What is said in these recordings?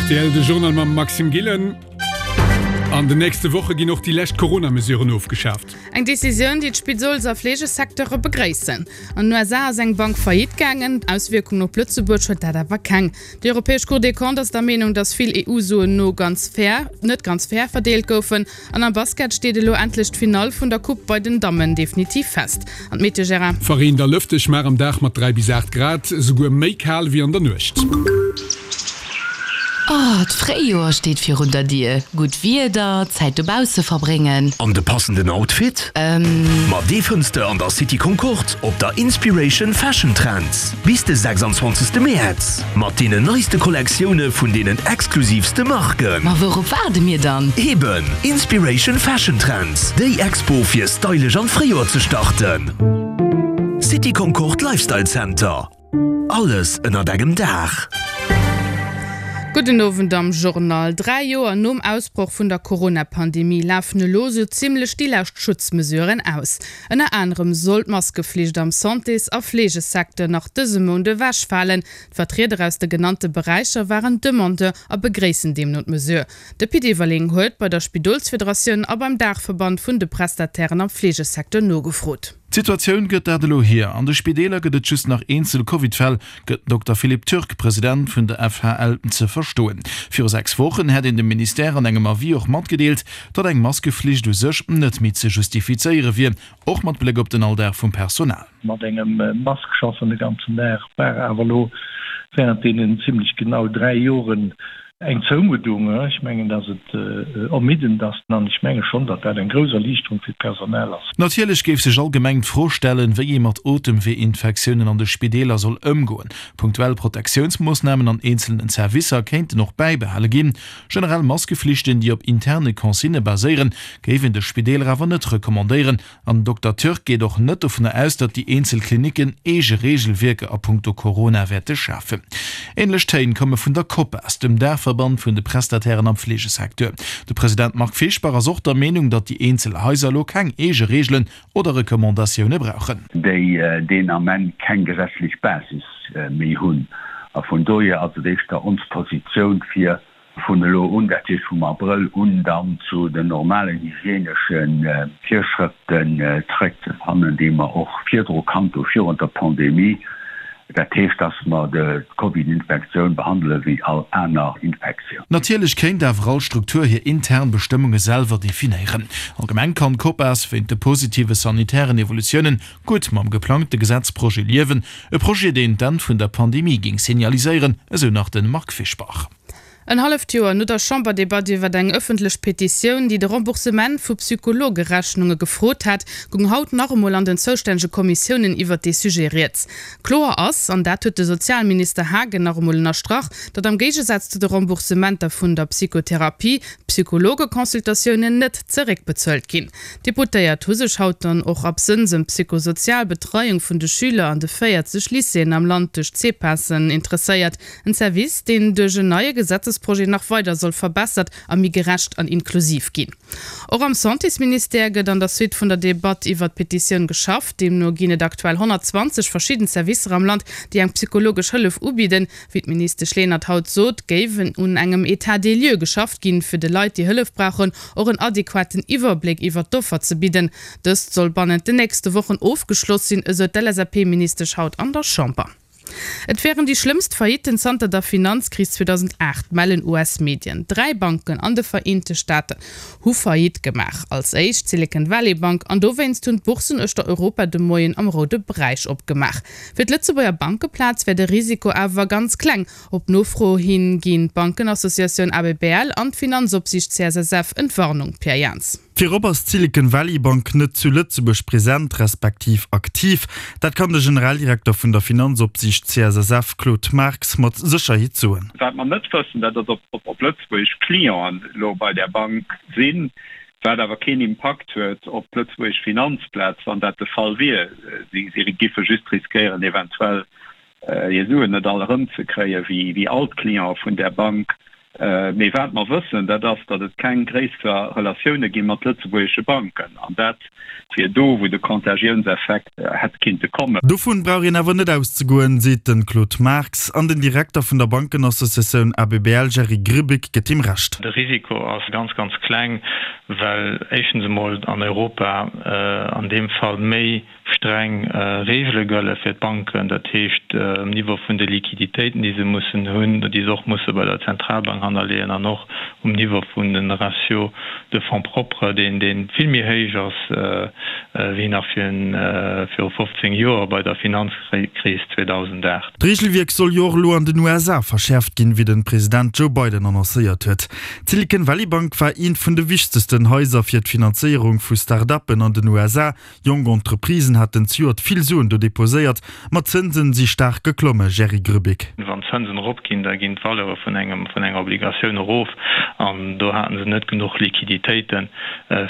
Rtl, de Journal mam Maxime Gillen. An den nächste Woche ginn och déi lescht Corona-Mesuren ofgeschaaft. Eng Decisioun, déi d'Spidols a Fleegesecteure begréissen. An den USA ass eng Bank Faillite gaangen. Auswierkungen op Lëtzebuerg huet dat awer keng. Déi europäesch Cour des Comptes ass der Meenung, datt vill EU-Suen no ganz fair net ganz fair verdeelt goufen. An am Basket steet elo endlech d'Finall vun der Coupe bei den Dammen definitiv fest. An d'Meteo, Gérard? Verreent a lëfteg, mar am Dag mat 3 bis 8 Grad, esouguer méi kal wéi an der Nuecht. Oh, d'Fréijoer steet virun der Dier. Gutt Wieder, Zäit dobausse verbréngen. An de passenden Outfit? Ähm. Ma dee fënns de an der City Concorde op der Inspiration Fashion Trends bis de 26 Mäerz mat deenen neiste Kollektioune vun deenen exklusivste Marken. Ma wourop waarde mir dann? Eben, Inspiration Fashion Trends, déi Expo fir stylesch an d'Fréijoer ze starten. City Concorde Lifestyle Center. Alles ënnert engem Daach. Gudden Owend am Journal. 3 Joer nom Ausbroch vun der Corona-Pandemie lafen elo sou zimmlech déi lescht Schutzmesuren aus. Ënner anerem soll d'Maskeflicht am Santés a Fleegesecteur nach dëse Mount ewechfalen. D'Vertrieder aus de genannte Beräicher waren Demandeur a begréissen deemno d'Mesure. De Pit Everling huet bei der Spidolsfederatioun a beim Daachverband vun de Prestatairen am Fleegesecteur nogefrot. D'Situatioun gëtt dat elo hier. An de Spideeler gëtt et just nach eenzel Covid-Fäll, gëtt den Dokter Philippe Türk, President vun der FHL, ze verstoen. Viru 6 Wochen hätt een dem Ministère an engem Avis och matgedeelt, datt eng Maskeflicht u sech net méi ze justifizéiere wier, och mat Bléck op den Alldag vum Personal. Mat engem Mask schaffen de ganzen Dag war awer elo während deenen zimlech genau 3 Joren Eng Zoumuddung, ech mengen, datt et ermiddend ass an ech menge schonn, datt dat eng grouss Erliichterung fir d'Personal ass. Natierlech géif sech allgemeng d'Fro stellen, wéi ee mat Otemweeinfektiounen an de Spideeler soll ëmgoen. Punktuell Protektiounsmoossnamen an eenzelnen Servicer kéinten och bäibehale ginn. Generell Maskeflichten, déi op interne Consignë baséieren, géif een de Spideeler awer net recommandéieren, An den Dokter Türk geet och net dovunner aus, datt déi eenzel Klinicken eege Reegelwierker a punkto Corona wäerte schafen. Änlech Téin komme vun der Copas, dem Daachverband vun de Prestatairen am Fleegesecteur. De President Marc Fischbach ass och der Meenung, datt déi eenzel Haiser elo keng eege Reegelen oder Recommandatioune brauchen. Déi deen Ament keng gesetzlech Basis méi hunn. A vun dohier ass et éischter ons Positioun, fir vun elo un, dat heescht vum Abrëll un, dann zu den normalen hygienesche Virschrëften zeréckzefannen, déi mer och virdru kannt hu virun der Pandemie. Dat heescht, dass mer d'Covid-Infektioun behandele wéi all aner Infektioun. Natierlech kéint awer all Struktur hir intern Bestëmmunge selwer definéieren. Allgemeng kann d'Copas wéint de positive sanitären Evolutiounen gutt mam geplangte Gesetzprojet liewen, e Projet, deen d'Enn vun der Pandemie géing signaliséieren, esou nach de Marc Fischbach. En halleft Joer no der Chamberdebatt iwwer eng ëffentlech Petitioun, déi de Remboursement vu Psychologerechnunge gefrot hat, goung haut nach emol an den zoustännege Kommissiounen iwwert dee Sujet rieds. Kloer ass, an dat huet de Sozialminister Haagen nach emol ënnerstrach, datt am Géigesaz zu de Remboursementer vun der Psychotherapie, d'Psychologeconsultatiounen net zeréckbezuelt ginn. D'Deputéiert hu sech haut dann och absënns ëm d'psychosozial Betreiung vun de Schüler an de 40 Lycéeën am Land duerch d'CPASen interesséiert. En Service, deen duerch en neie Gesetzesprojet nach weider soll verbessert a méi gerecht an inklusiv ginn. Och am Santésministère gëtt an der Suite vun der Debatt iwwert d'Petitioun geschafft. Deemno ginn et aktuell 120 verschidden Servicer am Land, déi eng psychologesch Hëllef ubidden. Wéi d'Ministesch Lenert haut sot, géif un engem État des lieux geschafft ginn, fir de Leit, déi Hëllef brauchen, och en adequaten Iwwerbléck iwwert d'Offer ze bidden. Dëst soll bannent den nächste Wochen ofgeschloss sinn, esou d'LSAP-Ministesch haut an der Chamber. Et wären déi schlëmmst Faillitten zanter der Finanzkris 2008, mellen US-Medien. 3 Banken an de Vereente Staaten hu Faillite gemaach. Als éischt d'Silicon Valley Bank an dowéinst hunn d'Bourssen uechter Europa de Moien am roude Beräich opgemaach. Fir d'Lëtzebuerger Bankeplaz wär de Risiko awer ganz kleng. Op Nofro hin ginn d'Bankenassociatioun ABBL an d'Finanzopsiicht CSSF Entwarnung. Pierre Jans. Virop ass d'Silicon Valley Bank net zu Lëtzebuerg present, respektiv aktiv. Dat kann de Generaldirekter vun der Finanzopsiicht CSSF, Claude Marx, mat Sécherheet soen. Wat mer net wëssen, dat ass, ob lëtzebuergesch Clienten elo bei där Bank sinn, wat awer keen Impakt huet op d'lëtzebuergesch Finanzplaz, wann dat de Fall wier. Si giffe just riskéieren, eventuell hir Suen net all erëmzekréien, wéi all d'Clientë vun där Bank. Mee wat mer wëssen, dat ass, datt et keng gréisser Relatioune gi mat lëtzebuergesche Banken. An dat wier do, wou de Contagiounseffekt hätt kinnte kommen. Dovun brauch een awer net auszegoen, seet de Claude Marx. An den Direkter vun der Bankenassociatioun ABBL Jerry Grbic gëtt him Recht. De Risiko ass ganz, ganz kleng, well éischtens emol an Europa an deem Fall méi streng Reegele gëlle fir d'Banken, dat heescht um Niveau vun de Liquiditéiten, déi se mussen hunn, déi se och musse bei der Zentralbank hannerleeën an och um Niveau vun de Ratio de fonds propres, deen dee vill méi héich ass wéi nach viru 15 Joer bei der Finanzkris 2008. D'Reegelwierk soll jo och elo an den USA verschäerft ginn, wéi de President Joe Biden annoncéiert huet. D'Silicon Valley Bank war eent vun de wichtegsten Haiser fir d'Finanzéierung vu Start-uppen an den USA. Jonk Entreprisen haten zejoert vill Suen do deposéiert, ma d'Zënsen si staark geklomme, Jerry Grbic. Wann d'Zënsen eropginn, da ginn d'Valeure vun engem vun enger Obligatioun erof an do haten se net genuch Liquiditéiten,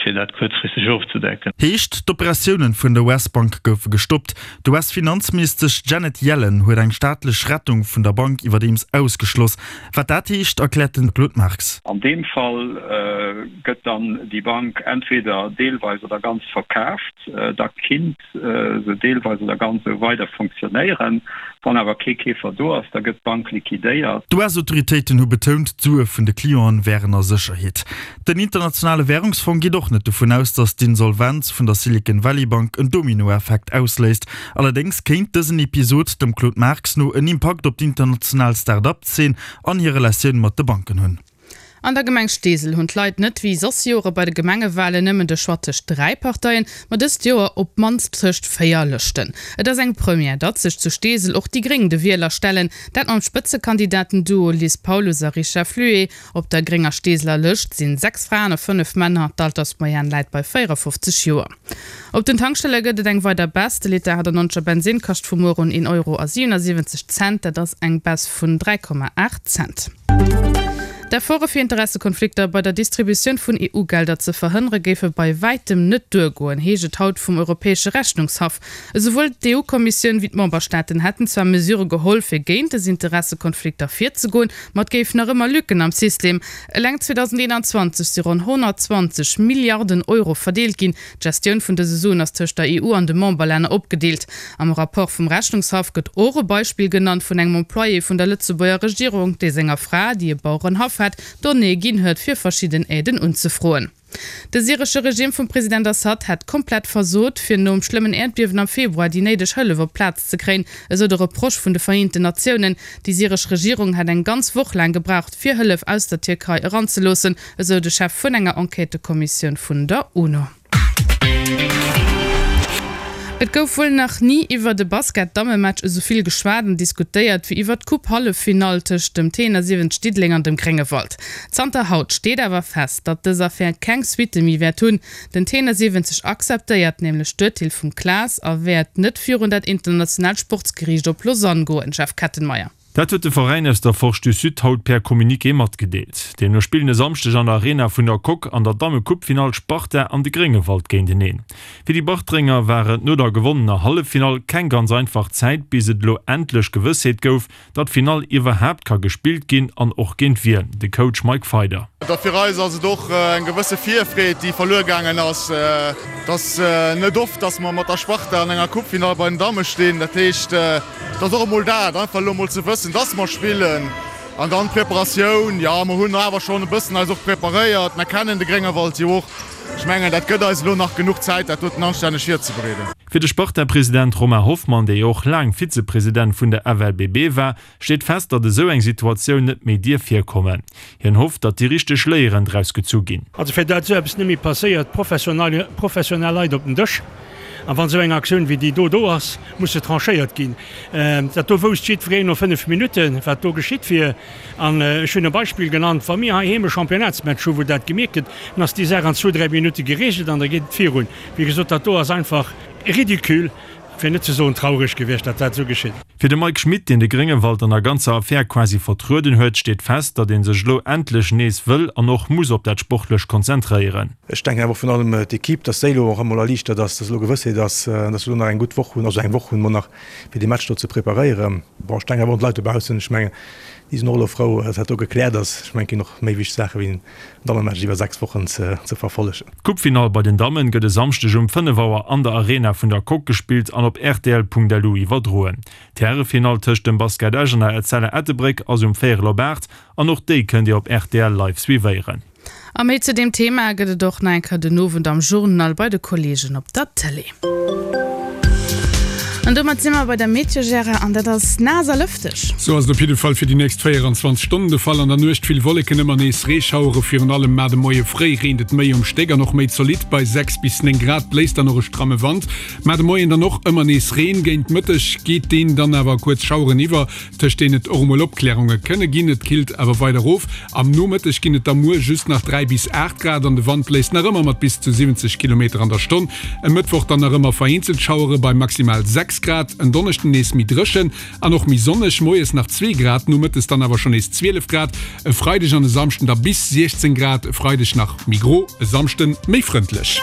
fir dat kuerzfristeg ofzedecken. Heescht, d'Operatiounen vun der US-Bank goufe gestoppt. D'US-Finanzministesch Janet Yellen huet eng staatlech Rettung vun der Bank iwwerdeems ausgeschloss. Wat dat heescht, erkläert den Claude Marx. An deem Fall gëtt dann déi Bank entweder deelweis oder ganz verkaaft, da kinnt se deelweis oder ganz esou weider fonctionnéieren. Wann awer kee Keefer do ass, da gëtt d'Bank liquidéiert. D'US-Autoritéiten hu betount, d'Sue vun de Clienten wären a Sécherheet. Den Internationale Wärungsfong geet och net dovun aus, datt d'Insolvenz vun der Silicon Valley Bank en Dominoeffekt ausléist. Allerdéngs kéint dësen Episod dem Claude Marx no en Impakt op d'international Start-up-Zeen an hir Relatioun mat de Banken hunn. An der Gemeng Steesel hunn d'Leit net wéi soss Jore bei de Gemengewalen nëmmen de Choix tëscht 3 Parteien, ma dëst Joer op d'mannst tëscht 4 Lëschten. Et ass eng Première, datt sech zu Steesel och déi Gréng de Wieler stellen, dat mam Spëtzekandidaten-Duo Liz Paulus a Richard Fluet. Op der grénger Steeseler Lëscht sinn 6 Fraen a 5 Männer, d'Altersmoyenne läit bei 54 Joer. Op den Tankstelle gëtt et eng weider Baisse, de Liter 98er Bensinn kascht vu muer un een Euro a 77 Cent, dat ass eng Baisse vun 3,8 Cent. D'Efforte fir Interessekonflikter bei der Distributioun vun EU-Gelder ze verhënnere géife bei wäitem net duergoen, heescht et haut vum Europäesche Rechnungshaff. Esouwuel d'EU-Kommissioun wéi d'Memberstaaten hätten zwar Mesure geholl, fir géint des Interessekonflikter virzegoen, ma et géif nach ëmmer Lücken am System. Eleng 2021 si ronn 120 Milliarden Euro verdeelt ginn. D'Gestioun vun dëse Suen ass tëscht der EU an de Memberlänner opgedeelt. Am Rapport vum Rechnungshaff gëtt och e Beispill genannt vun engem Employé vun der Lëtzebuerger Regierung, dee senger Fra, déi e Bauerenhaff hat, Donnéeë ginn huet, fir verschidden Aiden unzefroen. De syresche Regime vum President Assad hätt komplett versot, fir nom schlëmmen Äerdbiewen am Februar déi néideg Hëllef op d'Plaz ze kréien, esou de Reproche vun de Vereenten Natiounen. Déi syresch Regierung hätt eng ganz Woch laang gebraucht, fir Hëllef aus der Tierkei eranzeloossen, esou de Chef vun enger Enquêtëkommissioun vun der UNO. Et gouf wuel nach ni iwwert e Basket-Dammematch esou vill geschwat an diskutéiert wéi iwwert d'Coupe-Halleffinall tëscht dem T71 Diddeleng an dem Gréngewald. Zanter haut steet awer fest, datt dës Affär keng Suitte méi wäert hunn. Den T71 akzeptéiert nämlech d'Urteel vum CLAS a wäert net virun dat internationaalt Sportsgeriicht op Lausanne goen. Jeff Kettenmeyer. Dat huet de Veräin aus der Forge du Sud haut per Communiqué matgedeelt. Deemno spillen e Samschdeg an der Arena vun der Coque an der Damme-Coupe-Finall d'Sparta an de Gréngewald géinteneen. Fir déi Bartrenger war et no der gewonnener Halleffinall keng ganz einfach Zäit, bis et elo endlech Gewëssheet gouf, datt d'Finall iwwerhaapt ka gespillt ginn an och géint wien. De Coach Mike Feider. Da fir eis ass et och eng gewësse Virfreed, déi verluer gaangen ass. Et ass net oft, datt mer mat der Sparta an enger Coupe-Finall bei den Damme stinn. Dat heescht, Et ass och emol dat, einfach elo emol ze wëssen, dass mer spillen. An dann d'Preparatioun, jo, mer hunn awer schonn e bëssen eis och preparéiert. Mer kennen de Gréngewald jo och. Ech mengen, dat gëtt eis elo nach genuch Zäit, dat doten anstänneg virzebereeden. Fir de Sparta-President Romain Hoffmann, dee jo och laang Vizepresident vun der FLBB war, steet fest, datt esou eng Situatioun net méi dierf virkommen. Hien hofft, datt déi richteg Léieren draus gezu ginn. Also fir dat esou eppes net méi passéiert, professionell Leit op den Dësch. An wann esou eng Aktioun wéi déi do do ass, muss se tranchéiert ginn. Dat do wousst jiddwereen no 5 Minutten, wat do geschitt wier. An ech hunn e Beispill genannt, Wa mir heiheem e Championnatsmatch hu wou dat gemierkt gëtt, dann ass déi Saach an zwou, dräi Minutte geregelt an da geet et virun. Wéi gesot, dat do ass einfach ridicule. fir net ze soen traureg gewiescht, datt dat esou geschitt. Fir de Mike Schmit, deen de Gréngewald an der ganzer Affär quasi vertrueden huet, steet fest, datt ee sech elo endlech nees wëll an och muss op dat Sportlecht konzentréieren. Ech denken awer och virun allem d'Equipe, datt déi elo och emol erliichtert ass, datt elo Gewëssheet ass, datt se elo nach eng gutt Woch hunn, also eng Woch hunn mer nach, fir dee Match do ze preparéieren. Bon, ech denken awer och un d'Leit dobaussen. Ech mengen, déi sinn och elo frou, datt dat do gekläert ass. Ech mengen, et ginn och méi wichteg Saache wéi en Dammematch iwwer 6 Wochen ze verfollegen. D'Coupefinall bei den Dammen gëtt e Samschdeg um 5 Auer an der Arena vun der Coque gespillt an op rtl.lu iwwerdroen. D'Härefinall tëscht dem Basket Esch an der Etzella Ettelbréck ass um véierel op 8 an och déi kënnt Dir op rtl live suivéieren. A méi zu deem Thema gëtt et och nach eng Kéier den Owend am Journal bei de Kolleegen op der Tëlee. An domat si mer bei der Meteo, Gérard, an dat ass naass a lëfteg. Sou ass et op jidde Fall fir déi nächst 24 Stonnen de Fall. An der Nuecht vill Wolleken, ëmmer nees Reeschauere, virun allem mar de Moie fréi reent et méi um Stéck an och méi zolidd. Bei 6 bis 9 Grad bléist dann och e stramme Wand. Mar de Moien dann och ëmmer nees Reen, géint Mëtteg geet deen dann awer a kuerz Schaueren iwwer. tëscht deenen et och emol Opklärunge kënne ginn. Et killt awer weider erof. Am Nomëtteg ginn et da muer just nach 3 bis 8 Grad an de Wand bléist nach ëmmer mat bis zu 70 Kilometer an der Stonn. E Mëttwoch dann nach ëmmer vereenzelt Schauere bei maximal 6 Grad. En Donneschden nees méi dréchen an och méi sonneg, moies nach 2 Grad, nomëttes dann awer schonn nees 12 Grad. E Freideg an e Samschden da bis 16 Grad, e Freideg nach méi gro, e Samschde méi frëndlech.